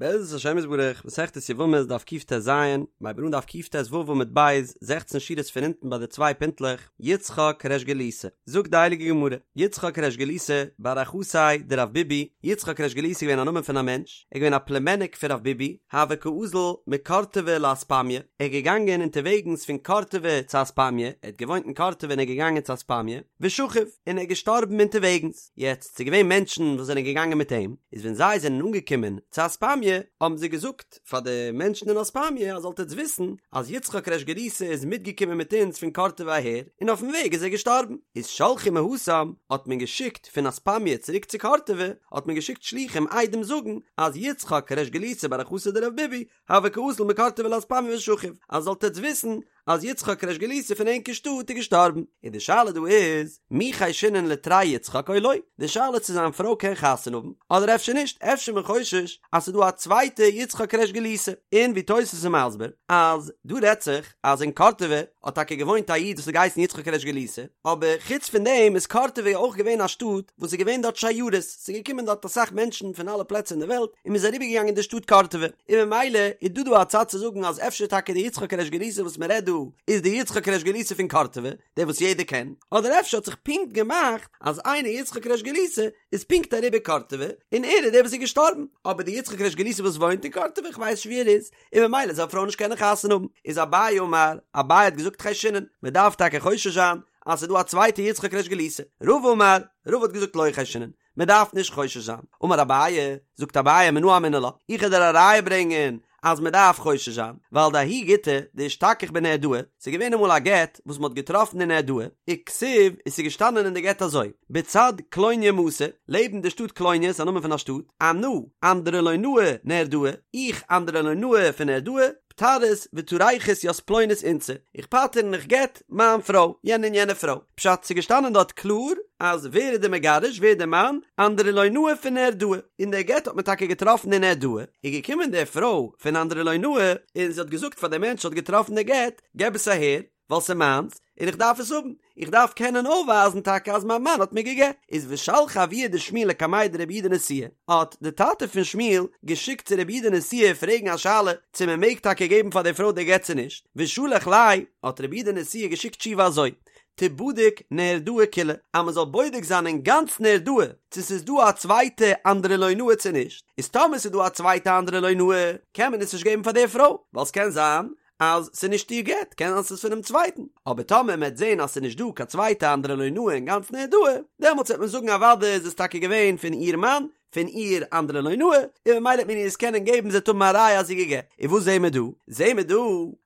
בעזרת השם יתברך, מסכת יבמות דף קט"ז, מ'הייבט אן דף קט"ו עמוד ב', זעכצן שורות פון אונטן ביי די צוויי פינטלעך, יצחק ריש גלותא, זאגט די הייליגע גמרא, יצחק ריש גלותא, בר אחתיה דרב ביבי, יצחק ריש גלותא איז געווען א נאמען פון א מענטש, ער איז געווען א פלומעניק פון רב ביבי, הוה קאזיל מקורטבא לאספמיא, ער איז געגאנגען אונטערוועגנס פון קורטבא צו אספמיא, ער האט געוואוינט אין קורטבא און ער איז געגאנגען צו אספמיא, ושכיב, און ער איז געשטארבן אונטערוועגנס. יעצט, ס'איז געווען מענטשן וואס זענען געגאנגען מיט אים, איז ווען זיי זענען אנגעקומען צו אספמיא, האבן זיי געזאגט פאר די מענטשן אין אספמיא, אז זאלט עטץ וויסן, אז יצחק ריש גלותא איז מיטגעקומען מיט אונז פון קורטבא אהער, און אויפן וועג איז ער געשטארבן. איז שלחו מהתם, האט מען געשיקט פון אספמיא צוריק צו קורטבא, האט מען געשיקט שלוחים עדים זאגן, אז יצחק ריש גלותא בר אחתיה דרב ביבי, הוה קאזיל מקורטבא לאספמיא ושכיב, אז זאלט עטץ וויסן, אז יצחק ריש גלותא פון ענקער שטאט איז געשטארבן, און די שאלה דא איז, מי חיישינן לתרי יצחק או לא, די שאלה צו זיין פרוי קען חתונה האבן, אדער אפשר נישט, אפשר איז מען חושש אז ס'איז דא א צווייטע יצחק ריש גלותא, און ווי תוס' איז מסביר, אז דא רעדט זיך אז אין קורטבא האט טאקע געוואוינט א איד וואס האט געהייסן יצחק ריש גלותא, אבער חוץ פון דעם איז קורטבא אויך געווען א שטאט וואס איז געווען דארט שיירות, ס'איז געקומען דארט אסאך מענטשן פון אלע פלעצער אין די וועלט, און מ'איז אריבערגעגאנגען אין די שטאט קורטבא. און ממילא איז דא דא א צד צו זאגן אז אפשר טאקע די יצחק ריש גלותא וואס מען רעדט דא איז די יצחק ריש גלותא פון קורטבא, דער וואס יעדער קען, אדער אפשר האט זיך פונקט געמאכט אז איינער יצחק ריש גלותא איז פונקט אריבער קורטבא און ער איז דער וואס איז געשטארבן, אבער די יצחק ריש גלותא וואס וואוינט אין קורטבא איך ווייס נישט ווי ער איז, און ממילא זאל א פרוי נישט קענען חתונה האבן, איז אביי אמר, אביי האט געזאגט חיישינן, מען דארף טאקע חושש זיין אז ס'איז דא א צווייטע יצחק ריש גלותא, רבא אמר, רבא האט געזאגט לא חיישינן, מען דארף נישט חושש זיין. אמר אביי, זאגט אביי מנא אמינא לה, איך וועל דיר א ראיה ברענגען אז מען דארף חושש זיין, ווייל דההוא גיטא דאשתכח בנהרדעא, ס'איז געווען אמאל א גט וואס מען האט געטראפן אין נהרדעא, וכתיב, און ס'איז געשטאנען אין די גט אזוי, בצד קלוניא מתא, לעבן די שטאט קלוניא, ס'איז א נאמען פון א שטאט, אנא, אנדרולינאי נהרדעא, איך אנדרולינאי פון נהרדעא, פטרית וטריכית ית פלונית אנתתא, איך פטר און איך גט מיין פרוי, יענע און יענע פרוי. פשט, ס'איז געשטאנען דארט קלאר אז ווער איז די מגרש, ווער איז די מאן, אנדרולינאי פון נהרדעא, און דער גט האט מען טאקע געטראפן אין נהרדעא, איז געקומען די פרוי פון אנדרולינאי און זי האט געזאגט פאר די מענטש האט געטראפן די גט, געב עס אהער, ווייל ס'איז מיינס, און איך דארף עס האבן, איך דארף קענען אויפווייזן טאקע אז מיין מאן האט מיר גע'גט. איז ושלח אבוה דשמואל לקמיה דרבי יהודה נשיאה, האט די טאטע פון שמואל געשיקט צו רבי יהודה נשיאה פרעגן א שאלה צו מען מעג טאקע געבן פאר די פרוי די גט צו נישט, ושלח ליה, האט רבי יהודה נשיאה געשיקט תשובה אזוי, תיבדק נהרדעא כולה, אז מען זאל בודק זיין אין גאנץ נהרדעא צו ס'איז דא א צווייטע אנדרולינאי צו נישט, איז טאמער ס'איז דא א צווייטע אנדרולינאי קען מען עס נישט געבן פאר די פרוי, ווייל ס'קען זיין אז ס'איז נישט איר גט, קען זיין ס'איז פונעם צווייטן, אבער טאמער מ'עט זען אז ס'איז נישט דא קיין צווייטע אנדרולינאי אין גאנץ נהרדעא, דעמאלטס וועט מען זאגן אוודאי איז עס טאקע געווען פון איר מאן, פון איר אנדרולינאי, און ממילא וועט מען איר עס קענען געבן זי וועט האבן א ראיה אז זי איז גע'גט. און וואס זעהן מיר דא? זעהן מיר דא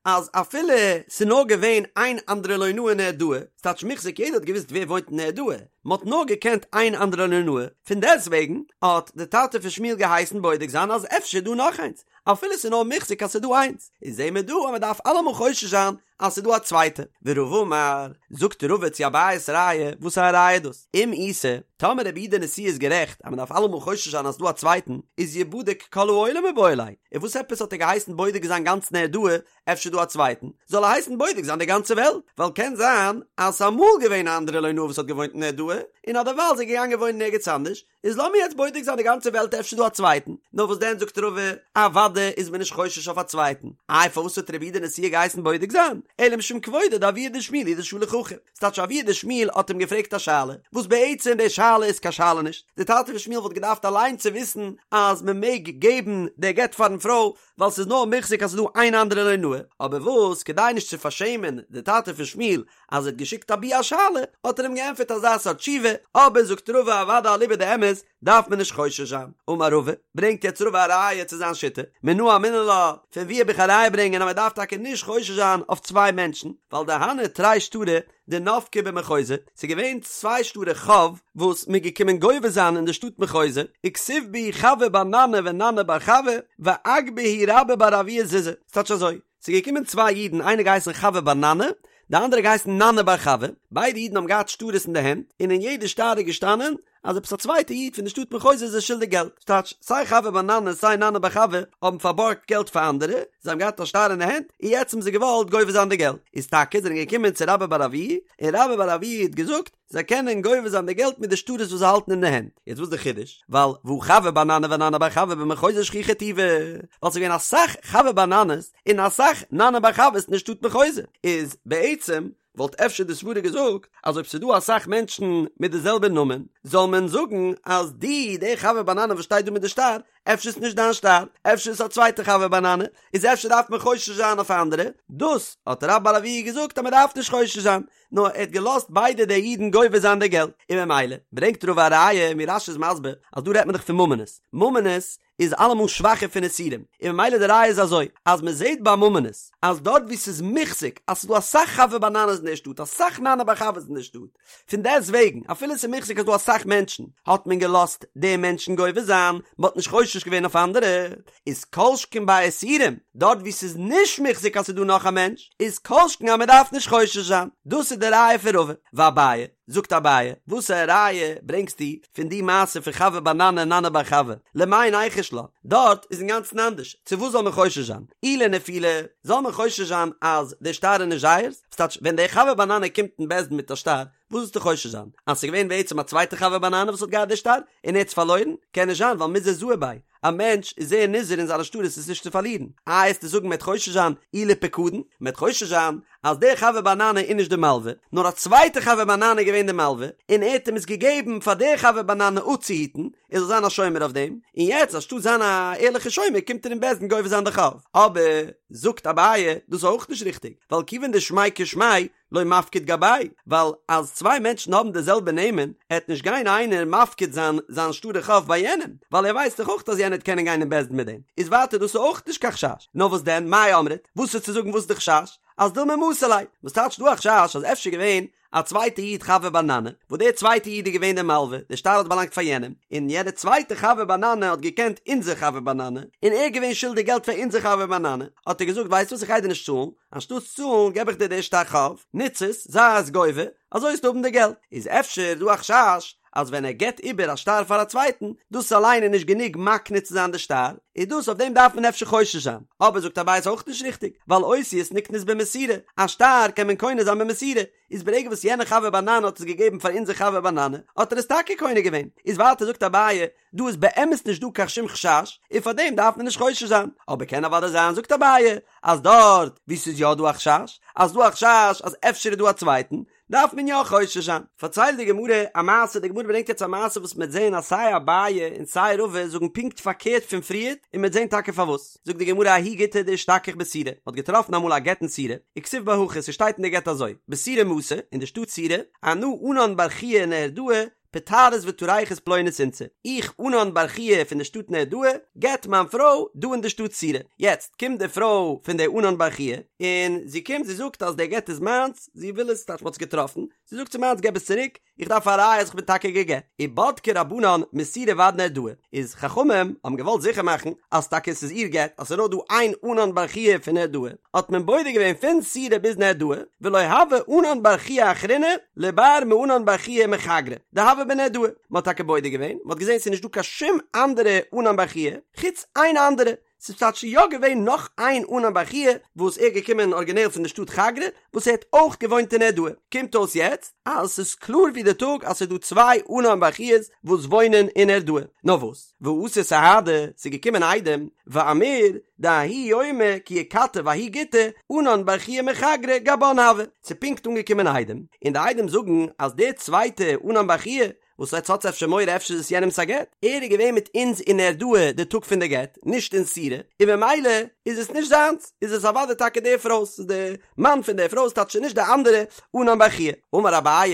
אז אפילו ס'איז נאר געווען איין אנדרולינאי אין נהרדעא, ס'טייטש מוחזק יעדער האט געוואוסט ווער וואוינט אין נהרדעא, מ'האט נאר געקענט איין אנדרולינאי, פון דעסטוועגן האט די טאטע פון שמואל געהייסן בודק זיין אז אפשר איז דא נאך איינס, אפילו ס'איז נאר מוחזק אז ס'איז דא איינס, איז זעהן מיר דא אז מ'דארף אלעמאל חושש זיין אז ס'איז דא א צווייטע. ורבא אמר, זאגט רבא צו אביי'ס ראיה, וואס א ראיה איז דאס? אם איתא, טאמער רבי יהודה נשיאה איז גערעכט אז מ'דארף אלעמאל חושש זיין אז ס'איז דא א צווייטן, איז יבדק כל העולם מיבעי ליה, און וואס עפעס האט ער געהייסן בודק זיין גאנץ נהרדעא, אפשר איז דא א צווייטן, זאל ער הייסן בודק זיין די גאנצע וועלט, ווייל קען זיין אז ס'איז אמאל געווען א אנדרולינאי וואס האט געוואוינט אין נהרדעא, און אדערווייל איז ער געגאנגען וואוינען ערגעץ אנדערש, איז לאמיר יעצט בודק זיין די גאנצע וועלט אפשר איז דא א צווייטן, נאר וואס דען זאגט רבא, אוודאי איז מען נישט חושש אויף א צווייטן, איי פארוואס האט רבי יהודה נשיאה געהייסן בודק זיין, אלא משום כבודו דאבוה דשמואל הוא דשלח הכי, ס'טייטש אבוה דשמואל האט אים געפרעגט א שאלה, וואס בעצם די שאלה איז קיין שאלה נישט, די טאטע פון שמואל וואלט געדארפט אליין צו וויסן אז מען מעג געבן די גט פארן פרוי, ווייל ס'איז נאר מוחזק אז ס'איז דא איין אנדרולינאי, אבער וואס כדי נישט צו פארשעמען די טאטע פון שמואל אז ער האט געשיקט אבי א שאלה, האט ער אים געענטפערט אזא סארט תשובה, אבער זאגט רבא אוודאי אליבא דאמת דארף מען נישט חושש זיין. אמר רבא, ברענגט יעצט רבא א ראיה צו זיין שיטה, מנא אמינא לה, פון וואו האב איך א ראיה ברענגען אז מען דארף טאקע נישט חושש זיין אויף צוויי מענטשן, ווייל דהני תרי שטרי דנפקי במחוזא, ס'איז געווען צוויי שטרי חוב וואס מ'איז געקומען גובה זיין אין די שטאט מחוזא, וכתיב בהו חוי בר ננאי וננאי בר חוי, ואגבי בהו רבה בר אבוה זוזי, ס'טייטש אזוי, ס'איז געקומען צוויי אידן איינער געהייסן חוי בר ננאי, די אנדערע געהייסן ננאי בר חוי, ביידע אידן האבן געהאט שטרות אין די הענט, און אין יעדע שטר איז געשטאנען. אז עפעס א צווייטע איד פון די שטאט מחוזא איז זיי שולדיג געלט, ס'טייטש סיי חוי בר ננא סיי ננא בר חוי האבן פארבארגט געלט פאר אנדערע, זיי האבן געהאט א שטר אין די הענט, און יעצט האבן זיי געוואלט גובה זיין די געלט, איז טאקע זענען געקומען צו רבה בר אבוה, און רבה בר אבוה האט געזאגט, זיי קענען גובה זיין די געלט מיט די שטרות וואס זיי האלטן אין די הענט. יעצט וואס איז די חידוש? ווייל והא חוי בר ננא וננא בר חוי במחוזא שכיחי טובא, ווייל ס'איז געווען אסאך חוי בר ננא'ס און אסאך ננא בר חוי'ס אין די שטאט מחוזא, איז בעצם וואלט אפשר די סברה געזאגט אז אויב ס'איז דא אסאך מענטשן מיט די זעלבע נאמען זאל מען זאגן אז די די חוי בר ננא וואס שטייט דא מיט די שטר אפשר איז נישט דיין שטר אפשר איז עס א צווייטע חוי בר ננא איז אפשר דארף מען חושש זיין אויף אנדערע דאס האט רבה בר אבוה געזאגט אז מען דארף נישט חושש זיין נאר ער האט געלאזט ביידע די אידן גובה זיין די געלט און ממילא ברענגט רבא א ראיה ווי רש"י איז מסביר אז דא רעדט מען דאך פון ממונות ממונות איז אלעמאל שוואכער פון איסורים, און ממילא די ראיה איז אזוי, אז מען זעט ביי ממונות, אז דארט וואו ס'איז מוחזק אז ס'איז דא אסאך חוי בר ננא'ס אין דער שטאט, אסאך ננא בר חוי'ס אין דער שטאט, פון דעסט וועגן, אפילו ס'איז מוחזק אז ס'דא אסאך מענטשן, האט מען געלאזט די מענטשן גובה זיין, מען האט נישט חושש געווען אויף אנדערע, איז כל שכן ביי איסורים, דארט וואו ס'איז נישט מוחזק אז ס'איז דא נאך א מענטש, איז כל שכן אז מען דארף נישט חושש זיין. דאס איז די ראיה פון רבא. ואביי. זאגט אביי, וואס א ראיה ברענגסטו פון די מעשה פון חוי בר ננא און ננא בר חוי, למאי ניחוש לה, דארט איז אינגאנצן אנדערש, צו וואס זאל מען חושש זיין, אי לנפילה, זאל מען חושש זיין אז די שטר איז נישט זייערס, ס'טייטש ווען דער חוי בר ננא קומט אין בית דין מיט א שטר, וואס זאלסטו חושש זיין, אז ס'איז געווען בעצם א צווייטע חוי בר ננא וואס האט געהאט די שטר, און ער האט עס פארלוירן, קען נישט זיין ווייל מיזהר זהיר ביה, א מענטש איז זייער נזהר אין זיינע שטרות עס נישט צו פארלירן. איי עסטו זאגן מ'עט חושש זיין אי לפקדון, מ'עט חושש זיין אז דער חוי בר ננא איז נישט די מלווה, נאר א צווייטע חוי בר ננא איז געווען די מלווה, און ער האט אים עס געגעבן פאר דער חוי בר ננא אפצוהיטן, ער זאל זיין א שומר אויף דעם, און יעצט אנשטאט זיין א ערליכע שומר קומט ער אין בית דין גובה זיין די חוב. אבער, זאגט אביי, דאס איז אויך נישט ריכטיג, ווייל כיוון דשמיה כשמיה, לא מפקיד גביה, ווייל אז צוויי מענטשן האבן די זעלבע נעמען, עט נישט גיין איינער מפקיד זיין זיין שטרי חוב ביי יענעם, ווייל ער ווייסט דאך אויך אז יענער עט קענען גיין אין בית דין מיט דעם, איז ווייטער דאס איז אויך נישט קיין חשש, נאר וואס דען, מאי אמרת, וואס איז צו זאגן וואס איז די חשש? אז דילמא מסר ליה, וואס טייטש דא א חשש אז אפשר געווען א צווייטע איד חוי בר ננא, וואס דער צווייטע איד איז געווען דער מלווה, דער שטר האט באלאנגט פאר יענעם, און יענער צווייטע חוי בר ננא האט געקענט אונזער חוי בר ננא, און ער איז געווען שולדיג געלט פאר אונזער חוי בר ננא, האט ער געזאגט ווייסט וואס איך גיי דיר נישט צאלן, אנשטאטס צאלן געב איך דיר די שטר חוב, נוץ עס, זיי עס גובה, אזוי וועסטו האבן די געלט. איז אפשר דא א חשש אז ווען ער געבט איבער א שטר פאר א צווייטן, דאס אליין איז נישט גענוג מקנה צו זיין די שטר, איז דאס אויף דעם דארף מען אפשר חושש זיין. אבער זאגט אביי איז אויך נישט ריכטיג, ווייל אותיות נקנות במסירה, א שטר קען מען קונה זיין במסירה, איז ברגע וואס יענער חוי בר ננא האט עס געגעבן פאר אונזער חוי בר ננא, האט ער עס טאקע קונה געווען. איז ווייטער זאגט אביי, דא איז באמת נישט דא קיין שום חשש, און פאר דעם דארף מען נישט חושש זיין, אבער קען אוודאי זיין זאגט אביי אז דארט וואו ס'איז יא דא א חשש, אז דא א חשש אז אפשר איז דא א צווייטן, דארף מען יא חושש זיין. פארציילט די גמרא א מעשה, די גמרא ברענגט יעצט א מעשה וואס מ'עט זען אז סיי אביי און סיי רבא זאגן פונקט פארקערט פון פריערט, און מ'עט זען טאקע פארוואס. זאגט די גמרא ההוא גיטא דאשתכח בסורא, מ'האט געטראפן אמאל א גט אין סורא, וכתיב ביה הכי, ס'שטייט אין די גט אזוי, בסורא מתא, אין די שטאט סורא, אנא ענן בר חייא נהרדעא, פטרית וטריכת פלונית אנתתא, איך ענן בר חייא פון די שטאט נהרדעא, גט מיין פרוי דא אין די שטאט סורא. יעצט קומט די פרוי פון די ענן בר חייא, און זי קומט זי זאגט אז די גט איז מיינס, זי וויל עס, טייטש מ'האט עס געטראפן, זי זאגט ס'איז מיינס געב עס צוריק, איך דארף א ראיה אז איך בין טאקע גע'גט. ובדקו רבנן מסורא ועד נהרדעא, איז חכמים האבן געוואלט זיכער מאכן אז טאקע עס איז איר גט, אז ס'איז נאר דא איין ענן בר חייא פון נהרדעא, האט מען בודק געווען פון סורא ביז נהרדעא, ולא הוה ענן בר חייא אחרינא לבר מענן בר חייא מחגרא דהוה בנהרדעא, מען האט טאקע בודק געווען, מען האט געזען ס'איז נישט דא קיין שום אנדערע ענן בר חייא, חוץ איין אנדערע, ס'איז טייטש יא געווען נאך איין ענן בר חייא וואס ער איז געקומען ארגינעל פון די שטאט חגרא, וואס ער האט אויך געוואוינט אין נהרדעא, קומט אויס יעצט אז ס'איז קלאר ווי די טאג אז ס'איז דא צוויי ענן בר חיא'ס וואס וואוינען אין נהרדעא, נאר וואס? ואתו סהדי, ס'איז געקומען עדים, ואמור, דההוא יומא כי איכתב ההוא גיטא, ענן בר חייא מחגרא גבן הוה, ס'איז פונקט אנגעקומען עדים, און די עדים זאגן אז דער צווייטע ענן בר חייא, וואס עטס האטס אפשר מורא אפשר איז עס יענעמס א גט, ער איז געווען מיט אונז אין נהרדעא די טאג פון די גט, נישט אין סורא, און במילא איז עס נישט זיינס, איז עס אוודאי טאקע די פרוי'ס, ס'איז די מאן פון די פרוי, ס'טייטש נישט די אנדערע ענן בר חייא. אמר אביי,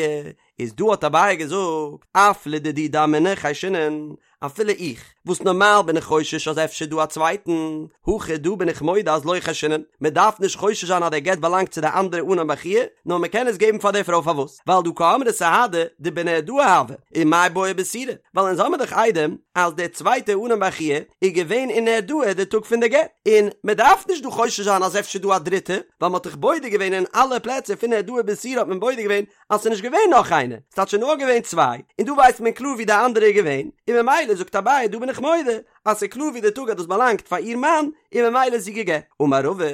איז דא האט אביי געזאגט, אף לדידי דאמינא חיישינן, אפילו איך. וואס נארמאל בין איך חושש אז אפשר דא א צווייטן, הכא דא בין איך מודה אז לא חיישינן, מען דארף נישט חושש זיין אז דער גט באלאנגט צו די אנדערע ענן בר חייא, נאר מען קען עס געבן פאר די פרוי פארוואס? ווייל דהא קאמרי סהדי דבנהרדעא הוה, ומאי בעי בסורא, ווייל אונז האמיר דאך עדים אז דער צווייטער ענן בר חייא איז געווען אין נהרדעא די טאג פון די גט, און מען דארף נישט דא חושש זיין אז אפשר דא א דריטע, ווייל מען האט דאך בודק געווען אין אלע פלעצער פון נהרדעא ביז סורא האט מען בודק געווען אז ס'איז נישט געווען נאך איינער, ס'טייטש ס'איז נאר געווען צוויי, און דא ווייסט מען קלאר ווי די אנדערע איז געווען, און ממילא זאגט אביי דא בין איך מודה אז ס'איז קלאר ווי די טאג אז דאס באלאנגט פאר איר מאן, און ממילא איז זי גע'גט. אמר רבא,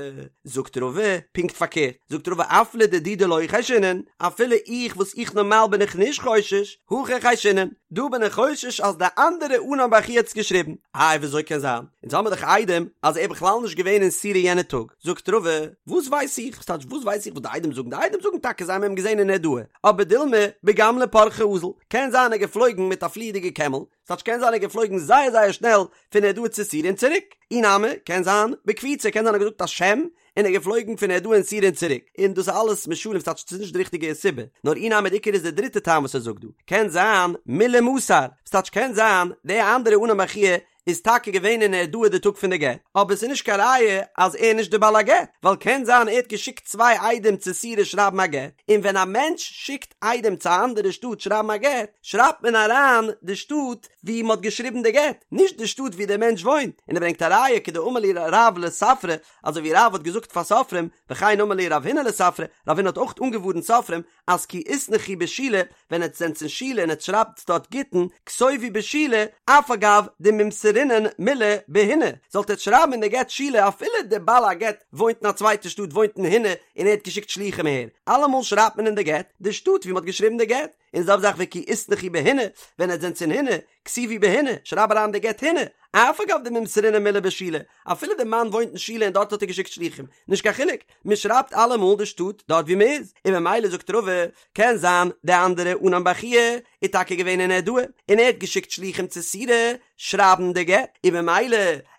זאגט רבא, פונקט פארקערט, זאגט רבא אף לדידי דלא חיישינן, אפילו איך וואס איך נארמאל בין איך נישט חושש, הכא חיישינן, דא בין איך חושש אז די אנדערע ענן בר חייא האט עס געשריבן. איי וויאזוי קען זיין? אונז האמיר דאך עדים אז ער איז בכלל נישט געווען אין סורא יענע טאג. זאגט רבא, וואס ווייס איך? וואס טייטש וואס ווייס איך וואס די עדים זאגן? די עדים זאגן טאקע זיי האבן אים געזען אין נהרדעא, אבער דילמא בגמלא פרחא אזל, קען זיין ער איז געפלויגן מיט א פליעדיגע קעמל, ס'טייטש קען זיין ער איז געפלויגן זייער זייער שנעל פון נהרדעא צו סורא און צוריק, אי נמי, קען זיין בקפיצה, קען זיין ער האט געזאגט א שם און ער איז געפלויגן פון נהרדעא אין סורא און צוריק, און דאס איז אלעס משלים ס'טייטש ס'איז נישט די ריכטיגע סיבה, נאר אי נמי די עיקר איז די דריטע טעם וואס ער זאגט דא, קען זיין מילי מסר, ס'טייטש קען זיין די אנדערע ענן בר חייא איז טאקע געווען אין נהרדעא די טאג פון די גט, אבער ס'איז נישט קיין ראיה אז ער איז נישט די בעל הגט, ווייל קען זיין ער האט געשיקט צוויי עדים צו סורא שרייבן א גט, און ווען א מענטש שיקט עדים צו א אנדערע שטאט שרייבן א גט, שרייבט מען אריין די שטאט ווי מ'האט געשריבן די גט, נישט די שטאט ווי דער מענטש וואוינט, און ער ברענגט א ראיה כדאמר להו רב לספרי, אזוי ווי רב האט געזאגט פאר סופרים, וכן אמר להו רב הונא לספרי, רב הונא האט אויך אנגעווארנט סופרים, אז כי איתנכו בשילה, ווען עטס זענטס אין שילה און עטס שרייבטס דארט גיטין, כתובו בשילה, אף על גב דממסרינן מילי בהיני, זאלט עטס שרייבן אין די גט שילה אפילו די בעל הגט וואוינט אין א צווייטע שטאט וואוינט אין היני און ער האט געשיקט שלוחים אהער, אלעמאל שרייבט מען אין די גט די שטאט ווי מען האט געשריבן די גט, און זעלבע זאך וכי איתנכו בהיני, ווען עטס זענטס אין היני, כתיבו בהיני, שרייב אריין די גט היני, אף על גב דממסרינן מילי בשילה, אפילו די מאן וואוינט אין שילה און דארט האט ער געשיקט שלוחים, נישט קיין חילוק, מען שרייבט אלעמאל די שטאט דארט ווי מען איז, און ממילא זאגט רבא, קען זיין די אנדערע ענן בר חייא איז טאקע געווען אין נהרדעא, און ער האט געשיקט שלוחים צו סורא שרייבן די גט, און ממילא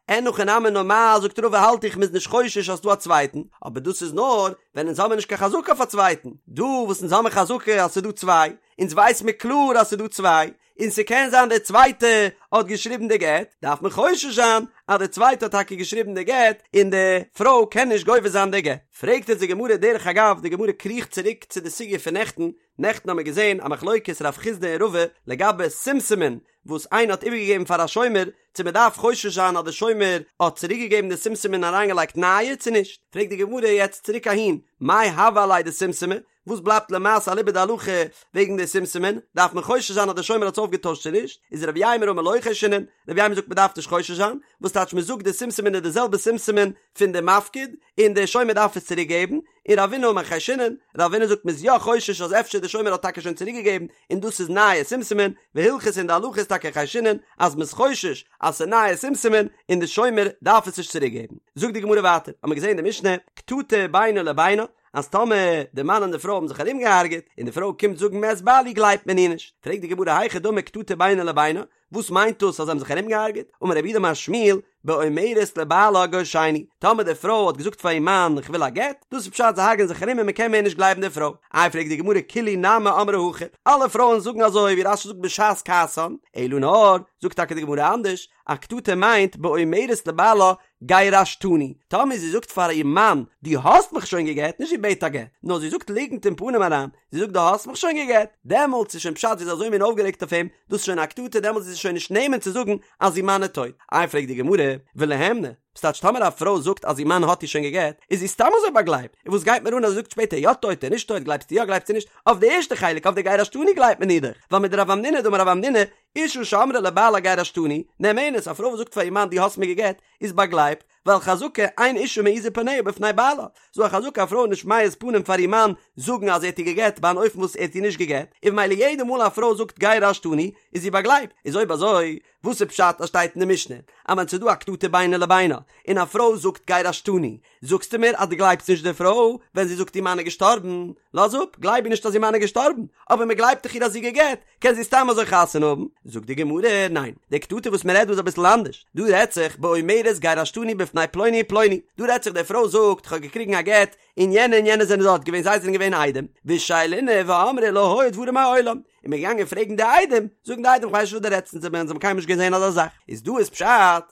אין הכי נמי נארמאל זאגט רבא האלט איך מ'איז נישט חושש אז ס'דא א צווייטן, אבער דאס איז נאר ווען אונז האמיר נישט קיין חזקה אויף א צווייטן, דא וואס אונז האמיר חזקה אז ס'איז דא צוויי, אונז ווייס מיר קלאר אז ס'איז דא צוויי, און ס'קען זיין דער צווייטע האט געשריבן די גט, דארף מען חושש זיין אז דער צווייטע האט טאקע געשריבן די גט, און די פרוי קען נישט גובה זיין די גט. פרעגט אונז די גמרא דרך אגב, די גמרא קריכט צוריק צו די סוגיא פון נעכטן, נעכטן האמיר געזען א מחלוקת רב חסדא און רבא לגבי שומשמין וואס איינער האט איבערגעגעבן פאר א שומר, צו מען דארף חושש זיין אז די שומר האט צוריקגעגעבן די שומשמין און אריינגעלייגט נייע צו נישט, פרעגט די גמרא יעצט צוריק אהין, מאי הוה עליה דשומשמי, וואס בלייבט למעשה אליבא דהלכה וועגן די שומשמין, דארף מען חושש זיין אז דער שומר האט עס אויפגעטוישט צו נישט, איז רב יימר אמר לא חיישינן, רב יימר זאגט מען דארף נישט חושש זיין, וואס טייטש מען זאגט די שומשמין איז די זעלבע שומשמין פון די מפקיד, און דער שומר דארף עס צוריק געבן, און רבינא אמר חיישינן, רבינא זאגט מען איז יא חושש אז אפשר דער שומר האט טאקע שוין צוריק געגעבן און דאס איז נייע שומשמין, והלכתא און די הלכה איז טאקע חיישינן אז מען איז חושש אז ס'איז נייע שומשמין און די שומר דארף עס נישט צוריק געבן. זאגט די גמרא ווייטער, האמיר געזען אין די משנה, קטטה בינו לבינה, אז טאמער די מאן און די פרוי האבן זיך ארומגעהארגעט און די פרוי קומט זאגן מת בעלי גלייבט מען איר נישט, פרעגט די גמרא היכי דמי קטטה בינו לבינה, וואס מיינט דאס אז זיי האבן זיך ארומגעהארגעט, אמר רב יהודה אמר שמואל, באומרת לבעלה גרשני, טאמער די פרוי האט געזאגט פאר איר מאן איך וויל א גט, דאס איז פשט זיי הרג'ענען זיך ארום און מען קען מער נישט גלייבן די פרוי, איי פרעגט די גמרא כולהו נמי אמרי הכי, אלע פרויען זאגן אזוי ווי רש"י זאגט בשעת כעסן, אלא נאר, זאגט טאקע די גמרא אנדערש, א קטטה מיינט באומרת לבעלה גירשתני, טאמער זי זאגט פאר איר מאן, דו האסט מיך שוין גע'גט, נישט זי בעט א גט, נאר זי זאגט ליגנט אין פנים אריין, זי זאגט דו האסט מיך שוין גע'גט, דעמאלטס איז שוין פשט זי איז אזוי מין אויפגערעגט אויף אים, דאס איז שוין א קטטה, דעמאלטס איז זי שוין נישט נאמן צו זאגן אז איר מאן איז טויט. איי פרעגט די גמרא, וליהימנה, וואס טייטש טאמער א פרוי זאגט אז איר מאן האט איר שוין גע'גט, איז זי סתם אזוי באגלייבט, און וואס גייט מיר אן אז זי זאגט שפעטער יא טויט און נישט טויט, גלייבסטו יא גלייבסטו נישט, אויף די ערשטע חלק אויף די גירשתני גלייבט מען איר דאך, ווייל מדרב המנונא דאמר רב המנונא, אשה שאמרה לבעלה גירשתני, נאמנת, א פרוי וואס זאגט פאר איר מאן דו האסט מיר גע'גט, איז באגלייבט, ווייל חזקה אין אשה מעיזה פניה בפני בעלה, ס'דא א חזקה א פרוי איז נישט מעיז פנים פאר איר מאן זאגן אז ער האט איר גע'גט ביי אן אופן וואס ער האט איר נישט גע'גט, און ממילא יעדע מאל א פרוי זאגט גירשתני איז זי באגלייבט, איז אויב אזוי וואס איז פשט אז שטייט אין די משנה אז ווען ס'איז דא א קטטה בינו לבינה און א פרוי זאגט גירשתני זאגסטו מיר אז דו גלייבסט נישט די פרוי ווען זי זאגט איר מאן איז געשטארבן? לאז אפ, גלייב איר נישט אז איר מאן איז געשטארבן, אבער מען גלייבט דאך איר אז זי גע'גט, קען זי סתם אזוי חתונה האבן? זאגט די גמרא, ניין, די קטטה וואס מען רעדט דא איז אביסל אנדערש, דא רעדט זיך באומרת גירשתני בפני פלוני ופלוני, דא רעדט זיך די פרוי זאגט איך האב געקריגן א גט, און יענע און יענע זענען דארט געווען זיי זענען געווען עדים, ושאילנא ואמרי לא היו דברים מעולם. און מ'איז געגאנגען פרעגן די עדים, זאגן די עדים כ'ווייס נישט וואס דו רעדסט אונז האבן קיינמאל נישט געזען אזא זאך, איז דא איז פשט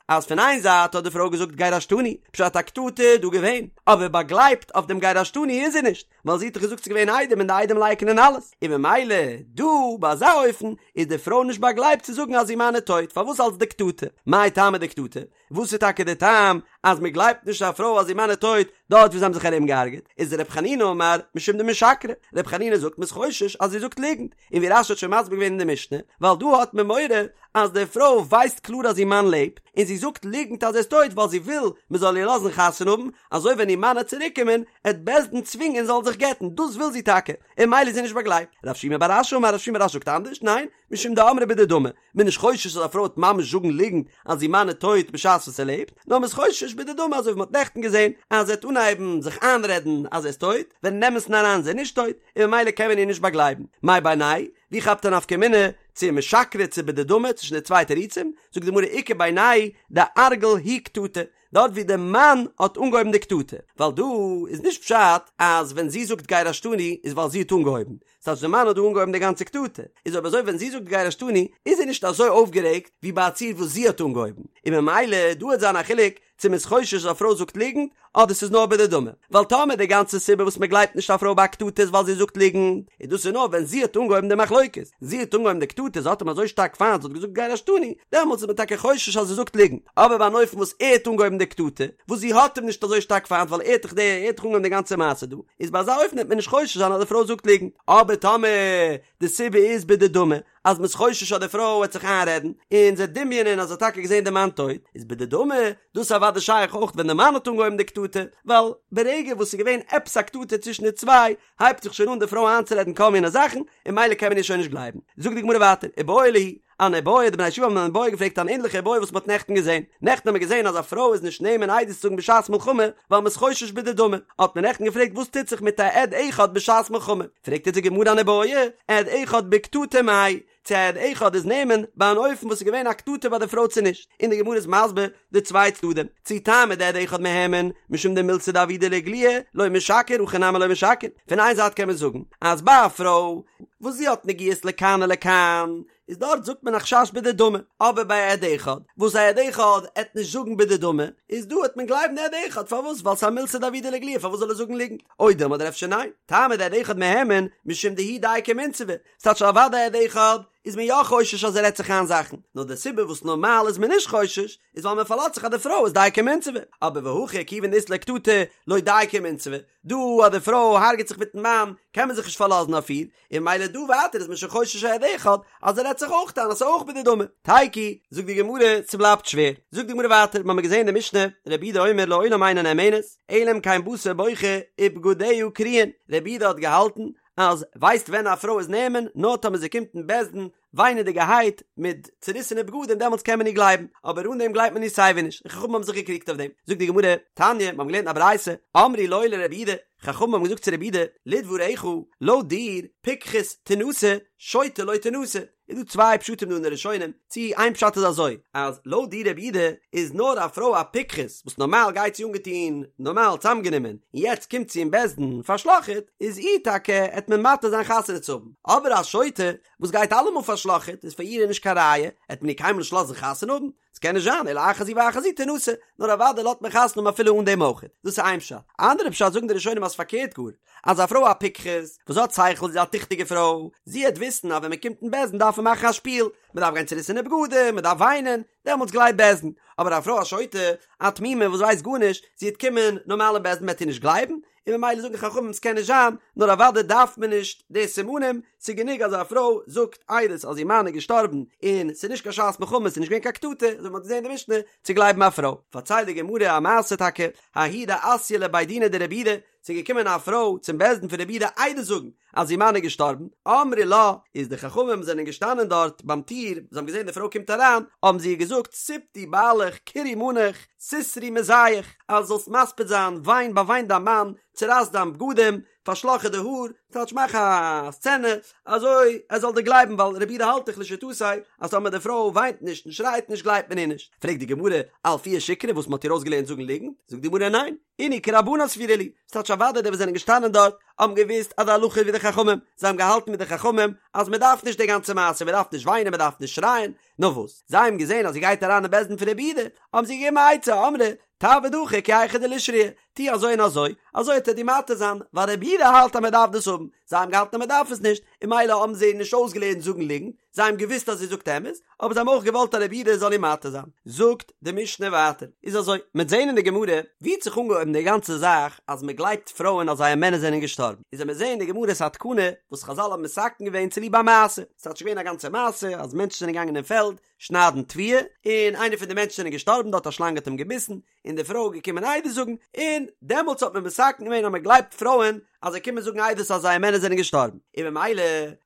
אז פון איין זייט האט די פרוי געזאגט גירשתני, פשט א קטטה איז דא געווען, אבער באגלייבט אויף דעם גירשתני איז זי נישט, ווייל זי האט דאך געזאגט ס'איז געווען עדים און די עדים לייקענען אלעס, און ממילא דא ביי אזא אופן איז די פרוי נישט באגלייבט צו זאגן אז איר מאן איז טויט, פארוואס אלס דקטטה? מאי טעמא דקטטה? וואס איז טאקע די טעם אז מען גלייבט נישט א פרוי אז איר מאן איז טויט דארט וואו זיי האבן זיך ארום געהארגעט? איז ר' חנינא אמר משום דמשקרא, ר' חנינא זאגט מען איז חושש אז זי זאגט ליגנט, און ווי רש"י האט שוין מסביר געווען אין די משנה, ווייל דא האט מען מורא אז די פרוי ווייסט קלאר אז איר מאן לעבט, און זי זאגט ליגנט אז ער איז טויט ווייל זי וויל מען זאל איר לאזן חתונה האבן, אזוי ווען איר מאן עט צוריק קומען עט בית דין צווינגען זי זאל זיך גט'ן, דאס וויל זי טאקע, און ממילא איז זי נישט באגלייבט. רב שימי בר אשי אמר רב שימי בר אשי זאגט אנדערש, ניין, משום דאמרה בדדמי, מען איז נישט חושש אז א פרוי וועט ממש זאגן ליגנט אז איר מאן איז טויט בשעת וואס ער לעבט, נאר מען איז חושש בדדמי אזוי ווי מען האט נעכטן געזען אז זי וועט אנהייבן זיך איינרעדן אז ער איז טויט, ווען אין אמת'ן אריין איז ער נישט טויט, און ממילא קען מען איר נישט באגלייבן. מאי בינייהו? ווי כאפט א נפקא מינה צו משקרא צו בדדמי צווישן די צוויי תירוצים? זאגט די גמרא איכא בינייהו דארגיל הוא קטטה, דארט ווי די מאן האט אנגעהויבן די קטטה, ווייל דא איז נישט פשט אז ווען זי זאגט גירשתני איז ווייל זי האט אנגעהויבן, ס'טייטש די מאן האט דא אנגעהויבן די גאנצע קטטה, איז אויב אזוי ווען זי זאגט גירשתני איז זי נישט אזוי אויפגערעגט ווי ביי א ציור וואס זי האט אנגעהויבן, און ממילא דא וועט זיין א חילוק צו מ'איז חושש אז א פרוי זאגט ליגנט אדער ס'איז נאר בדדמי, ווייל טאמער די גאנצע סיבה וואס מ'גלייבט נישט א פרוי ביי א קטטה איז ווייל זי זאגט ליגנט, איז דאס איז נאר ווען זי האט אנגעהויבן די מחלוקת, זי האט אנגעהויבן די קטטה, זי האט אים אזוי שטארק פיינט, זי האט געזאגט גירשתני, דעמאלטס איז מען טאקע חושש אז זי זאגט ליגנט, אבער ביי אן אופן וואס ער האט אנגעהויבן די קטטה, וואס זי האט אים נישט אזוי שטארק פיינט ווייל ער האט דאך די ער האט דאך אנגעהויבן די גאנצע מעשה דא, איז ביי אזא אופן וועט מען נישט חושש זיין אז די פרוי זאגט ליגנט, אבער טאמער די סיבה איז בדדמי, אז מ'איז חושש אז די פרוי וועט זיך איינרעדן, און זי וועט דמיונ'ען אז זי האט טאקע געזען די מאן טויט, איז בדדמי, דאס איז אוודאי שייך אויך ווען די מאן האט אנגעהויבן די קטטה, ווייל ברגע וואס ס'איז געווען עפעס א קטטה צווישן די צוויי, הייבט זיך שוין אן די פרוי איינצורעדן כל מיני זאכן, און ממילא קען מען איר שוין נישט גלייבן. זאגט די גמרא ווייטער, איבעיא להו, אן איבעיא, די בני הישיבה האבן אן איבעיא געפרעגט אן ענליכע איבעיא וואס מ'האט נעכטן געזען. נעכטן האט מען געזען אז א פרוי איז נישט נאמן עדות צו זאגן בשעת מלחמה, ווייל מ'איז חושש בדדמי. האט מען נעכטן געפרעגט וואס טוט זיך מיט א עד אחד בשעת מלחמה. פרעגט אונז די גמרא אן איבעיא, עד אחד בקטטה מאי, צו א עד אחד איז נאמן ביי אן אופן וואס איז געווען א קטטה ביי די פרוי צו נישט, און די גמרא איז מסביר די צוויי צדדים, צו טעמא דעד אחד מהימן משום דמילתא דעבידא לאיגלויי לא משקר הכא נמי לא משקר, פון איין זייט קען מען זאגן אז ביי א פרוי וואס זי האט נגיעות לכאן ולכאן איז דארט זאגט מען א חשש בדדמי, אבער ביי א עד אחד וואס א עד אחד עט נישט זאגן בדדמי איז דא עט מען גלייבן די עד אחד פארוואס ווייל ס'איז א מילתא דעבידא לאיגלויי פארוואס זאל ער זאגן ליגנט, או דילמא אדער אפשר ניין, טעמא דעד אחד מהימן משום דהוא דייקא ומינסבא, ס'טייטש אוודאי עד אחד איז מען יא חושש אז ער רעדט זיך איין זאכן, נאר די סיבה וואס נארמאל איז מען נישט חושש איז ווייל מען פארלאזט זיך אז די פרוי איז דייקא ומינסבא, אבער והכא כיוון דאית לה קטטה לא דייקא ומינסבא, דא אז די פרוי הרג'ט זיך מיטן מאן קען מען זיך נישט פארלאזן אויף איר, און ממילא דא ווייטער איז מען שוין חושש א עד אחד אז ער רעדט זיך אויך איין אז ס'איז אויך בדדמי. תיקו, זאגט די גמרא, ס'בלייבט שווער. זאגט די גמרא ווייטער, מ'האמיר געזען אין די משנה, רבי יהודה אומר לעולם אינה נאמנת, אלא אם כן באתה בוכה ובגדיה קרועין, רבי יהודה האט געהאלטן אז ווייסט ווען א פרוי איז נאמן נאר טאמער זי קומט אין בית דין וויינעדיגערהייט מיט צוריסענע בגדים דעמאלטס קען מען איר גלייבן אבער אן דעם גלייבט מען איר סייווי נישט און חכמים האבן זיך געקריגט אויף דעם זאגט די גמרא תניא מיר האבן געלערנט א ברייתא אמרו לו לרבי יהודה חכמים האבן געזאגט צו רבי יהודה לדבריך לויט דיר פיקחת תנשא שוטה לא תנשא איז דא צוויי פשטים דא אין די ראשונים, צו איין פשט איז אזוי, אז לויט דיר רבי יהודה איז נאר א פרוי א פיקחת וואס נארמאל גייט זי אנגעטון נארמאל צאמגענומען, און יעצט קומט זי אין בית דין פארשלאכעט, איז איר טאקע עט מען מתיר זיין חתונה צו האבן, אבער א שוטה וואס גייט אלעמאל פארשלאכעט איז פאר איר נישט קיין ראיה, עט מען איר קיינמאל נישט לאזן חתונה האבן, ס'קען נישט זיין, אלא אחת זו ואחת זו תנשא, נאר אוודאי לאזט מען חתונה האבן אפילו אן דעם אויך. דאס איז איין פשט. א אנדערע פשט זאגן די ראשונים אז פארקערט גאר, אז א פרוי א פיקחת, וואס האט שכל, זי איז א טיכטיגע פרוי, זי העט וויסן אז ווען מען קומט אין בית דין דארף מען מאכן א שפיל, מען דארף גיין צוריסענע בגדים, מען דארף וויינען, דעמאלטס גלייבט בית דין. אבער א פרוי א שוטה, א תמימה וואס ווייסט גארנישט, זי העט קומען נארמאל אין בית דין מען העט איר נישט גלייבן, און ממילא זאגן חכמים ס'קען נישט זיין, נאר אוודאי דארף מען נישט די סימנים, ס'איז גענוג אז א פרוי זאגט עדות אז איר מאן איז געשטארבן און ס'איז נישט קיין שעת מלחמה ס'איז נישט געווען קיין קטטה, אזוי ווי מ'האט געזען אין די משנה, צו גלייבן א פרוי. פארציילט די גמרא א מעשה טאקע, ההיא דאתיא לבי דינא דרבי יהודה, ס'איז געקומען א פרוי צום בית דין פון רבי יהודה עדות זאגן אז איר מאן איז געשטארבן, אמרי לה, איז די חכמים זענען געשטאנען דארט ביים טיר, זיי האבן געזען די פרוי קומט אריין, האבן זיי איר געזאגט, ספדי בעליך קרעי מאניך, סתרי מזייך, אז זאלסט מספיד זיין, וויין, באוויין דיין מאן, צורייס דיין בגדים, פארשלאך איר די האר, טייטש מאך א סצענע, אזוי ער זאל דיר גלייבן ווייל רבי יהודה האלט דאך לשיטתו אז טאמער די פרוי וויינט נישט און שרייט נישט גלייבט מען איר נישט. פרעגט די גמרא, אלפוה שיקרא וואס מען האט איר אויסגעלערנט זאגן ליגנט? זאגט די גמרא ניין, אינהו כרבנן סבירא להו, ס'טייטש אוודאי די וואס זענען געשטאנען דארט האבן געוואוסט אז די הלכה איז ווי די חכמים, זיי האבן געהאלטן מיט די חכמים אז מען דארף נישט די גאנצע מעשה, מען דארף נישט וויינען מען דארף נישט שרייען, נאר וואס? זיי האבן געזען אז זי גייט אריין אין בית דין פון רבי יהודה, האבן זיי געגעבן א עצה, אמרי, תעביד הכי כי היכי דלישרייה, טו אזוי און אזוי, אזוי וועט ער דיר מתיר זיין, ווייל רבי יהודה האלט אז מען דארף דאס האבן, זיי האבן געהאלטן אז מען דארף עס נישט, און ממילא האבן זיי איר נישט אויסגעלערנט זאגן ליגנט, זיי האבן געוואוסט אז זי זאגט אמת, אבער זיי האבן אויך געוואלט אז רבי יהודה זאל איר מתיר זיין. זאגט די משנה ווייטער, איז אזוי, מ'עט זען אין די גמרא, ווי האט זיך אנגעהויבן די גאנצע זאך אז מען גלייבט פרויען אז זייער מענער זענען געשטארבן, איז וועט מען זען אין די גמרא ס'איז א תקנה וואס חזל האבן מתקן געווען צוליב א מעשה, ס'האט שוין געווען א גאנצע מעשה אז מענטשן זענען געגאנגען אין פעלד שניידן תבואה, און איינער פון די מענטשן זענען געשטארבן דארט א שלאנג האט אים געביסן, און די פרוי איז געקומען עדות זאגן, און דעמאלטס האט מען מתקן געווען אז מען גלייבט פרויען אז זיי קומען זאגן עדות אז זייער מענער זענען געשטארבן, און במילא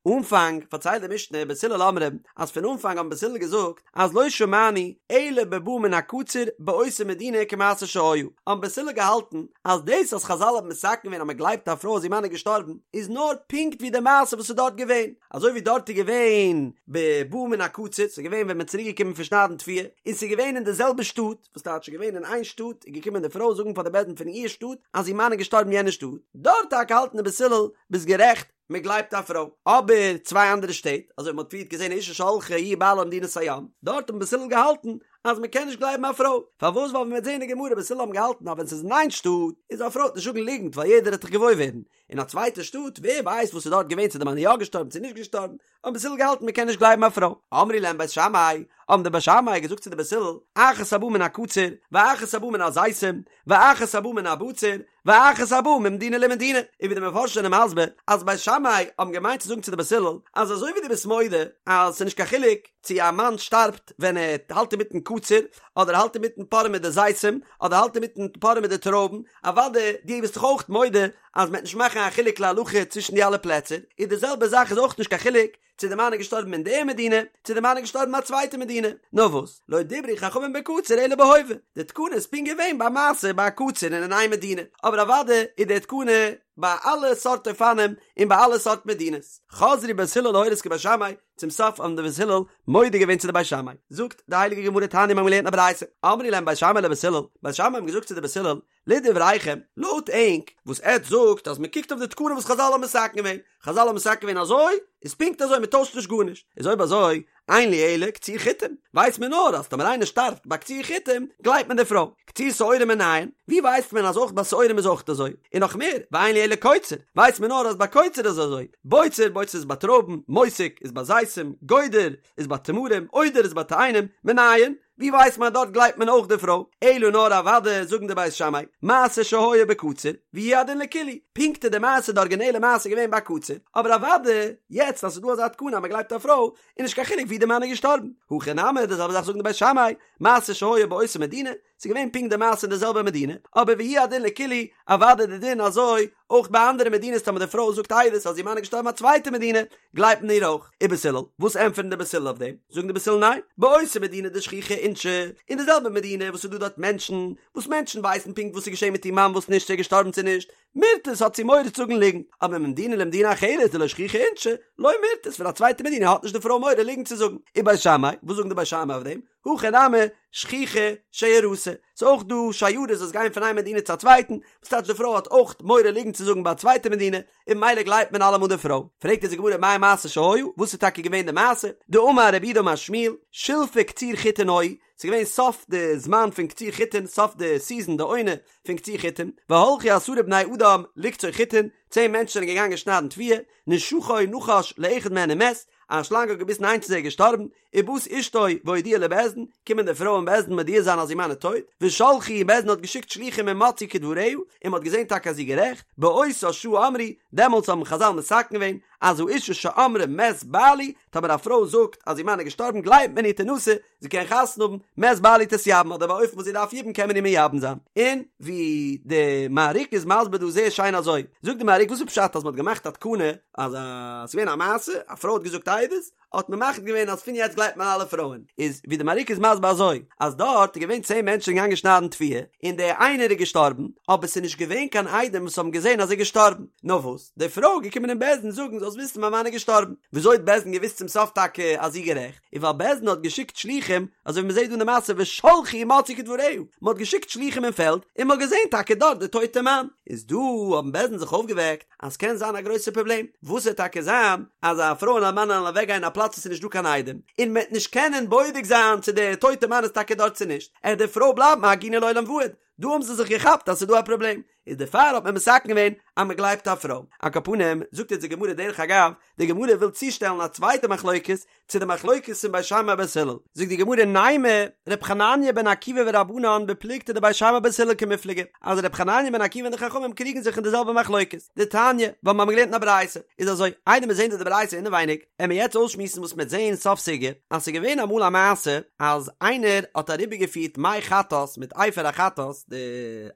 אנפאנג פארציילט די משנה בית הלל אומרים אז פון אנפאנג האבן בית הלל געזאגט אז לא שמענו אלא בבא מן הקציר באותה מדינה כמעשה שהיה, האבן בית הלל געהאלטן אז דאס אז חזל האבן מתקן געווען אז מען גלייבט א פרוי אז איר מאן איז געשטארבן איז נאר פונקט ווי די מעשה וואס איז דארט געווען, אזוי ווי דארט איז געווען בבא מן הקציר, ס'איז געווען ווען מען איז צוריק געקומען פון שניידן תבואה, און ס'איז געווען אין די זעלבע שטאט, וואס טייטש ס'איז געווען אין איין שטאט איז געקומען די פרוי זאגן פאר די בית דין פון איר שטאט אז איר מאן איז געשטארבן אין יענע שטאט, דארט טאקע האלטן די בית הלל ביסט גערעכט מען גלייבט א פרוי, אבער צוויי אנדערע שטעט אזוי ווי מען האט פריערט געזען אשה שהלכה היא ובעלה למדינת הים, דארט האבן בית הלל געהאלטן אז מען קען נישט גלייבן א פרוי, פארוואס ווייל ווי מען וועט זען אין די גמרא בית הלל האבן געהאלטן אז ווען ס'איז אין איין שטאט איז א פרוי וועט נישט זאגן ליגנט ווייל יעדער וועט דאך געוואויר ווערן, אין א צווייטע שטאט ווער ווייסט וואס איז דארט געווען צו די מאן איז יא געשטארבן צו נישט געשטארבן, האבן בית הלל געהאלטן מען קען נישט גלייבן א פרוי. אמרו להם בית שמאי, האבן די בית שמאי געזאגט צו די בית הלל, אחת הבאה מן הקציר, ואחת הבאה מן הזיתים, ואחת הבאה מן הבציר, ואחת הבאה ממדינה למדינה. און ווי די מפרשים זענען מסביר, אז בית שמאי האבן געמיינט צו זאגן צו די בית הלל, אז אזוי ווי דו ביסט מודה אז ס'איז נישט קיין חילוק צו א מאן שטארבט ווען ער האלט אינמיטן קציר, אדער האלט אינמיטן פארען מיט די זיתים, אדער האלט אינמיטן פארען מיט די טרויבן, אוודאי דו ביסט דאך אויך מודה אז מ'וועט נישט מאכן א חילוק להלכה צווישן די אלע פלעצער, איז די זעלבע זאך איז אויך נישט קיין חילוק צו די מאן איז געשטארבן אין די מדינה, צו די מאן איז געשטארבן אין א צווייטע מדינה. נאר וואס, לא דברו חכמים בקציר אלא בהווה, די תקנה איז פונקט געווען ביי מעשה ביי א קציר און אין איין מדינה, אבער אוודאי איז די תקנה ביי אלע סארט אופנים און ביי אלע סארט מדינות. חזרו בית הלל להורות כבית שמאי, צום סוף האבן די בית הלל מודה געווען צו די בית שמאי. זאגט די הייליגע גמרא תניא מיר האבן געלערנט א ברייתא, אמרו להם בית שמאי לבית הלל, בית שמאי האבן געזאגט צו די בית הלל, לדבריכם, לויט ענק, וואס עטץ זאגט אז מען קוקט אויף די תקנה וואס חזל האבן מתקן געווען, חזל האבן מתקן געווען אזוי, איז פונקט אזוי מען טוישט נישט גארנישט, איז אויב אזוי, אין לי אלא קציר חיטים, ווייסט מען נאר אז טאמער איינער שטארבט ביי קציר חיטים, גלייבט מען די פרוי, קציר שעורים מנין, ווי ווייסט מען אז אויך ביי שעורים איז אויך אזוי, און נאך מער, ואין לי אלא קוצר, ווייסט מען נאר אז ביי קוצר איז אזוי, בוצר, בוצר איז ביי טרויבן, מוסק איז ביי זיתים, גודר איז ביי תמרים, עודר איז ביי תאנים, מנין, ווי ווייסט מען אז דארט גלייבט מען אויך די פרוי? אלא נאר אוודאי זאגן די בית שמאי, מעשה שהיה בקציר, והוא הדין לכולהו, פונקט איז די מעשה די ארגינעלע מעשה געווען ביי קציר, אבער אוודאי יעצט אז ס'איז דא אזא תקנה אז מ'גלייבט א פרוי, איז נישט קיין חילוק ווי די מאן איז געשטארבן. הכא נמי, די זעלבע זאך זאגן די בית שמאי, מעשה שהיה באותה מדינה, ס'איז געווען פונקט די מעשה אין די זעלבע מדינה, אבער והוא הדין לכולהו, אוודאי די דין אזוי אויך ביי אנדערע מדינות טאמער די פרוי זאגט עדות אז איר מאן איז געשטארבן אין א צווייטע מדינה, גלייבט מען איר אויך. ובית הלל, וואס ענטפערן די בית הלל אויף דעם? זאגן די בית הלל ניין, באותה מדינה דשכיחי אינשי, אין די זעלבע מדינה וואס ס'איז דא דארט מענטשן, וואס מענטשן ווייסן פונקט וואס איז געשען מיט איר מאן וואס נישט, צו ער איז געשטארבן צו נישט, מירתת האט זי מורא צו זאגן ליגנט, אבער ממדינה למדינה אחרת דלא שכיחי אינשי, לא מירתת פון א צווייטע מדינה האט נישט די פרוי מורא ליגנט צו זאגן. ובית שמאי, וואס זאגן די בית שמאי אויף דעם? הכא נמי, שכיחא שיירתא, ס'איז אויך דא שיירות וואס גייען פון איין מדינה צו א צווייטן, וואס טייטש די פרוי האט אויך מורא ליגנט צו זאגן ביי א צווייטע מדינה, און ממילא גלייבט מען אלעמאל די פרוי. פרעגט אונז די גמרא מאי מעשה שהיה, וואס איז טאקע געווען די מעשה? דאמר רב יהודה אמר שמואל, שלפי קציר חיטין היו, ס'איז געווען סוף די זמן פון קציר חיטין, סוף די סיזען, די עונה פון קציר חיטין, והלכו עשרה בני אדם לקצור חיטין, צען מענטשן זענען געגאנגען שניידן תבואה, נשכו נחש לאחד מהן ומת, א שלאנג האט געביסן איינס פון זיי איז געשטארבן, ובאת אשתו והודיעה לבית דין, קומען די פרוי אין בית דין מודיע זיין אז איר מאן איז טויט, ושלחו און בית דין האט געשיקט שלוחים ומצאו כדבריה, און מען האט געזען טאקע אז זי איז גערעכט, באותה שעה אמרו, דעמאלטס האבן חזל מתקן געווען, אז האשה שאמרה מת בעלי, טאמער א פרוי זאגט אז איר מאן איז געשטארבן גלייבט מען איר תנשא, זי קען חתונה האבן, מת בעלי תתייבם, אדער באופן וואס זי דארף יבום קען מען איר מייבם זיין. און ווי די מהריק איז מסביר דא זייער שיין אזוי, זאגט די מהריק וואס איז פשט אז מען האט געמאכט א תקנה אז א, ס'איז געווען א מעשה, א פרוי האט געזאגט עדות, האט מען מחליט געווען אז פון יעצט גלייבט. גלייבט מען אלע פרויען, איז ווי די מהרי"ק איז מסביר אזוי, אז דארט איז געווען צען מענטשן געגאנגען שניידן תבואה, און דער איינער איז געשטארבן, אבער ס'איז נישט געווען קיין עדים וואס האבן געזען אז ער איז געשטארבן, נאר וואס, די פרוי איז געקומען אין בית דין זאגן זאלסט וויסן מיין מאן איז געשטארבן, וויאזוי האט בית דין געוואוסט צום סוף טאקע אז זי איז גערעכט, איז ווייל בית דין האט געשיקט שלוחים, אזוי ווי מ'זעט דא אין די מעשה ושלחו ומצאו כדבריה, מ'האט געשיקט שלוחים אין פעלד, און מ'האט געזען טאקע דארט די טויטע מאן, איז דא האבן בית דין זיך אויפגעוועקט, אז ס'קען זיין א גרויסע פראבלעם, וואס וועט טאקע זיין אז א פרוי און א מאן וועלן אוועק גיין אין א פלאץ וואס איז נישט דא קיין עדים, און מ'וועט נישט קענען בודק זיין צו דער טויטע מאן איז טאקע דארט צו נישט, עט די פרוי בלייבן א עגונה לעולם ועד, דא האבן זיי זיך געכאפט אז ס'איז דא א פראבלעם, איז דערפאר האט מען מתקן געווען אז מ'גלייבט א פרוי. על כל פנים, זאגט יעצט די גמרא דרך אגב, די גמרא וויל צושטעלן א צווייטע מחלוקת צו די מחלוקת פון בית שמאי בית הלל, זאגט די גמרא נימא ר' חנניה בן עקיבא ורבנן בפלוגתא דבית שמאי בית הלל קמיפלגי, אז ר' חנניה בן עקיבא און די חכמים קריגן זיך אין די זעלבע מחלוקת, דתניא, ווייל מיר האבן געלערנט אין א ברייתא, איז אזוי, איידער מיר זעהן דא די ברייתא אינעווייניג, עמיר יעצט אויסשמועסן וואס מ'עט זעהן סוף סוגיא, אז ס'איז געווען אמאל א מעשה אז איינער האט אריבערגעפירט מי חטאת מיט אפר החטאת, די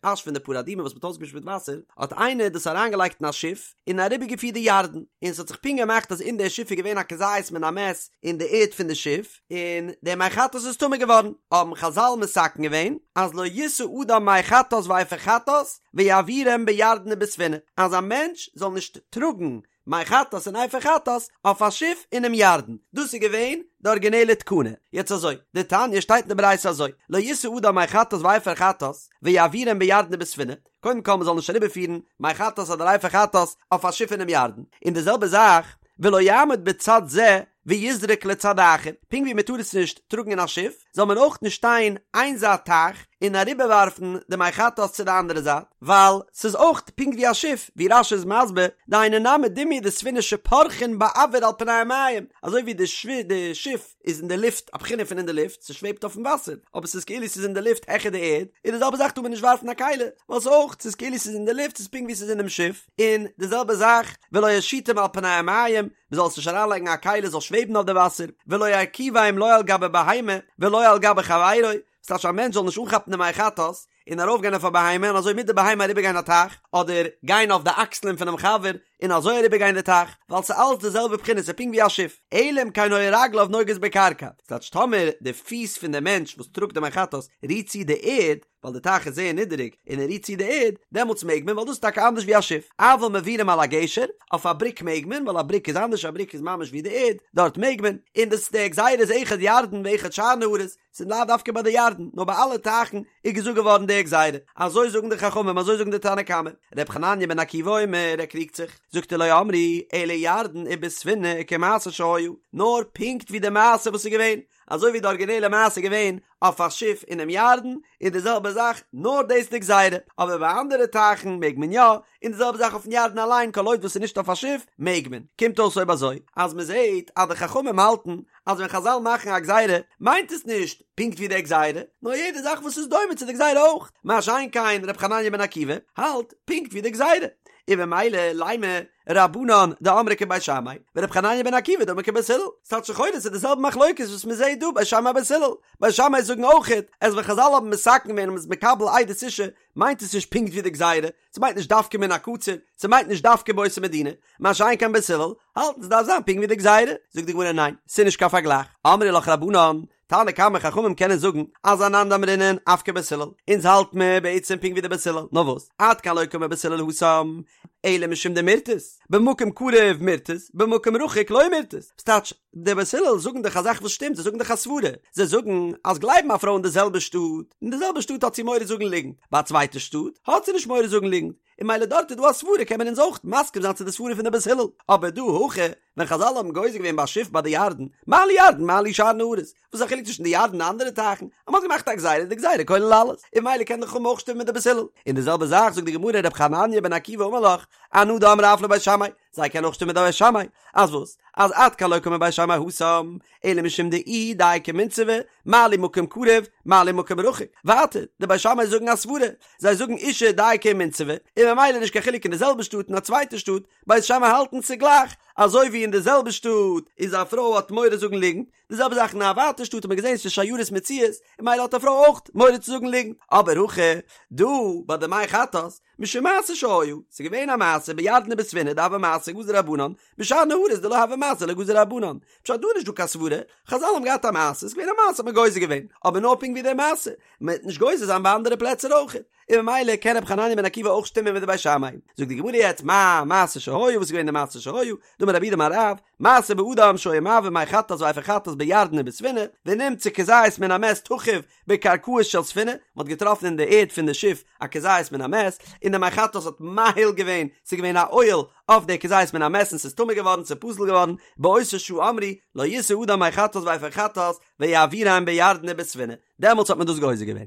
אש פון די פרה אדומה וואס מ'האט אויסגעמישט מיט וואסער, האט איינער דאס אריינגעלייגט אין א שיף, און אריבערגעפירט די ירדן, און ס'האט זיך פונקט געמאכט אז אין דער שיף איז געווען א כזית מן המת אין די ערד פון די שיף, און דער מי חטאת איז טמא געווארן, האבן חזל מתקן געווען אז לא ישא אדם מי חטאת ואפר חטאת ויעבירם בירדן ובספינה, אז א מענטש זאל נישט טראגן מי חטאת און אפר חטאת אויף א שיף אינעם ירדן, דאס איז געווען די ארגינעלע תקנה, יעצט אזוי, דתניא שטייט אין די ברייתא אזוי, לא ישא אדם מי חטאת ואפר חטאת ויעבירם בירדן ובספינה, קודם כל מ'זאל נישט אריבערפירן מי חטאת אדער אפר חטאת אויף א שיף אינעם ירדן, און די זעלבע זאך ולא יעמוד בצד זה ויזרוק לצד האחר, פונקט ווי מ'טאר עס נישט טראגן אין א שיף, זאל מען אויך נישט שטיין איין זייט טייך און אריבערווארפן די מי חטאת צו די אנדערע זייט, ווייל ס'איז אויך פונקט ווי א שיף, ווי רש"י איז מסביר, דהיינו נמי דומיא דספינה שפורחין באויר על פני המים, אזוי ווי די שיף איז אין די לופט, א בחינה פון אין די לופט, ס'שוועבט אויפן וואסער, אבער ס'איז כאילו ס'איז אין די לופט העכער די ערד, און די זעלבע זאך טאר מען נישט ווארפן א כלי, ווייל ס'איז אויך, ס'איז כאילו ס'איז אין די לופט, ס'איז פונקט ווי ס'איז אינעם שיף, און די זעלבע זאך, ולא ישיטם על פני המים, מ'זאל עס נישט אריינלייגן א כלי זאל שוועבן אויף די וואסער, ולא ירכיבם לא על גבי בהמה, ולא על גבי חברו, ס'טייטש א מענטש זאל נישט אנכאפן די מי חטאת, און ארויפגיין אויף א בהמה און אזוי מיט די בהמה אריבערגיין א טייך, אדער גיין אויף די אקסלען פונעם חבר און אזוי אריבערגיין די טייך, ווייל ס'איז אלץ די זעלבע בחינה ס'איז פונקט ווי א שיף, אלא אם כן היו רגליו נוגעות בקרקע, ס'טייטש טאמער די פיס פון די מענטש וואס טראגט די מי חטאת רירט צו די ערד, ווייל די טייך איז זייער נידעריג און ער רירט צו די ערד, דעמאלטס מעג מען ווייל דאס איז טאקע אנדערש ווי א שיף, אבל מעבירם על הגשר, אויף א בריק מעג מען ווייל א בריק איז אנדערש א בריק איז ממש ווי די ערד, דארט מעג מען, און דאס די גזירה איז אחד ירדן ואחד שאר נהרות, ס'איז לאו דווקא ביי די ירדן, נאר ביי אלע טייכן איז געזאגט געווארן די גזירה. אזוי זאגן די חכמים, אזוי זאגן די תנא קמא. ר' חנניה בן עקיבא אומר, ער קריגט זיך, זאגט ער לא אמרו אלא ירדן ובספינה כמעשה שהיה, נאר פונקט ווי די מעשה וואס איז געווען, אזוי ווי די ארגינעלע מעשה איז געווען אויף א שיף אינעם ירדן, איז די זעלבע זאך, נאר דאס איז די גזירה, אבער ביי אנדערע טייכן מעג מען יא, און די זעלבע זאך אויפן ירדן אליין כל עוד וואס ס'איז נישט אויף א שיף מעג מען. קומט אויס אויב אזוי אז מ'זעט אז די חכמים האלטן אז ווען חזל מאכן א גזירה מיינט עס נישט פונקט ווי די גזירה, נאר יעדע זאך וואס איז דומה צו די גזירה אויך, מה שאין כן ר' חנניה בן עקיבא האלט פונקט ווי די גזירה, און במילא לימא רבנן דאמרי כבית שמאי ור' חנניה בן עקיבא דאמר כבית הלל, ס'טייטש לכאורה ס'איז די זעלבע מחלוקת וואס מ'זעט דא בית שמאי בית הלל, בית שמאי זאגן אויכעט אז ווען חזל האבן מתקן געווען און מ'איז מקבל עדות אשה מיינט עס נישט פונקט ווי די גזירה, ס'מיינט נישט דווקא מן הקציר, ס'מיינט נישט דווקא באותה מדינה, מה שאין כן בית הלל, האלטן ס'דארף זיין פונקט ווי די גזירה, זאגט די גמרא ניין, ס'איז נישט קיין פארגלייך, אמרי לך רבנן, תנא קמא חכמים קענען זאגן אז אנן דאמרינן אף כבית הלל, אונז האלט מיר בעצם פונקט ווי די בית הלל, נאר וואס, עד כאן לא קאמר בית הלל התם, אלא משום דמירתת, במקום קרוב מירתת, במקום רחוק לא מירתת, ס'טייטש, די בית הלל זאגן דאך א זאך וואס שטימט, זיי זאגן דאך א סברה, זיי זאגן אז גלייבן א פרוי אין די זעלבע שטאט, אין די זעלבע שטאט האט זי מורא זאגן ליגנט, ביי א צווייטע שטאט האט זי נישט מורא זאגן ליגנט, און מילא דארט איז דא א סברה קען מען אונז אויך מסכים זיין צו די סברה פון די בית הלל, אבער דא הכא ווען חזל האבן גוזר געווען ביי א שיף ביי די ירדן, מה לי ירדן מה לי שאר נהרות, וואס איז א חילוק צווישן די ירדן און אנדערע טייכן, אז מ'האט געמאכט א גזירה איז די גזירה כולל אלעס, און מילא קען די חכמים אויך שטימען מיט די בית הלל, און די זעלבע זאך זאגט די גמרא ר' חנניה בן עקיבא אמר לך, אנא דאמרי אף לבית שמאי, זיי קענען אויך שטימען מיט די בית שמאי, אז וואס? אז עד כאן לא קאמר בית שמאי התם, אלא משום דאיהי דייקא ומינסבא, מה לי מקום קרוב, מה לי מקום רחוק. ווייטער, די בית שמאי זאגן א סברה, זיי זאגן אישה דייקא ומינסבא, און ממילא נישט קיין חילוק אין די זעלבע שטאט און א צווייטע שטאט, בית שמאי האלטן ס'גלייך. אזוי ווי אין די זעלבע שטאט איז א פרוי האט מורא זאגן ליגנט, די זעלבע זאך אין א ווייטע שטאט האט מען געזען ס'איז שיירות מצויות, און ממילא האט א פרוי אויך מורא צו זאגן ליגנט, אבער הכא דא ביי די מי חטאת, משום מעשה שהיה, ס'איז געווען א מעשה בירדן ובספינה דהוה מעשה גזור רבנן, בשאר נהרות דלא הוה מעשה לא גזור רבנן, פשט דא איז נישט דא קיין סברה, חזל האבן געהאט א מעשה, ס'איז געווען א מעשה האט מען גוזר געווען, אבער נאר פונקט ווי די מעשה, מען וועט נישט גוזר זיין ביי אנדערע פלעצער אויך, און ממילא קען רבי חנניה בן עקיבא אויך שטימען מיט די בית שמאי. זאגט די גמרא יעצט מאי מעשה שהיה, וואס איז געווען די מעשה שהיה, דאמר רב יהודה אמר רב, מעשה באדם שהיה מעביר מי חטאת ואפר חטאת בירדן ובספינה, ונמצא כזית מן המת תחוב בקרקעית של ספינה, מען האט געטראפן אין די ערד פון די שיף א כזית מן המת, און די מי חטאת האט מאהיל געווען, ס'איז געווען א אוהל אויף די כזית מן המת און ס'איז טמא געווארן, ס'איז פסול געווארן, באותה שעה אמרו, לא ישא אדם מי חטאת ואפר חטאת ויעבירם בירדן ובספינה, דעמאלטס האט מען דאס גוזר געווען.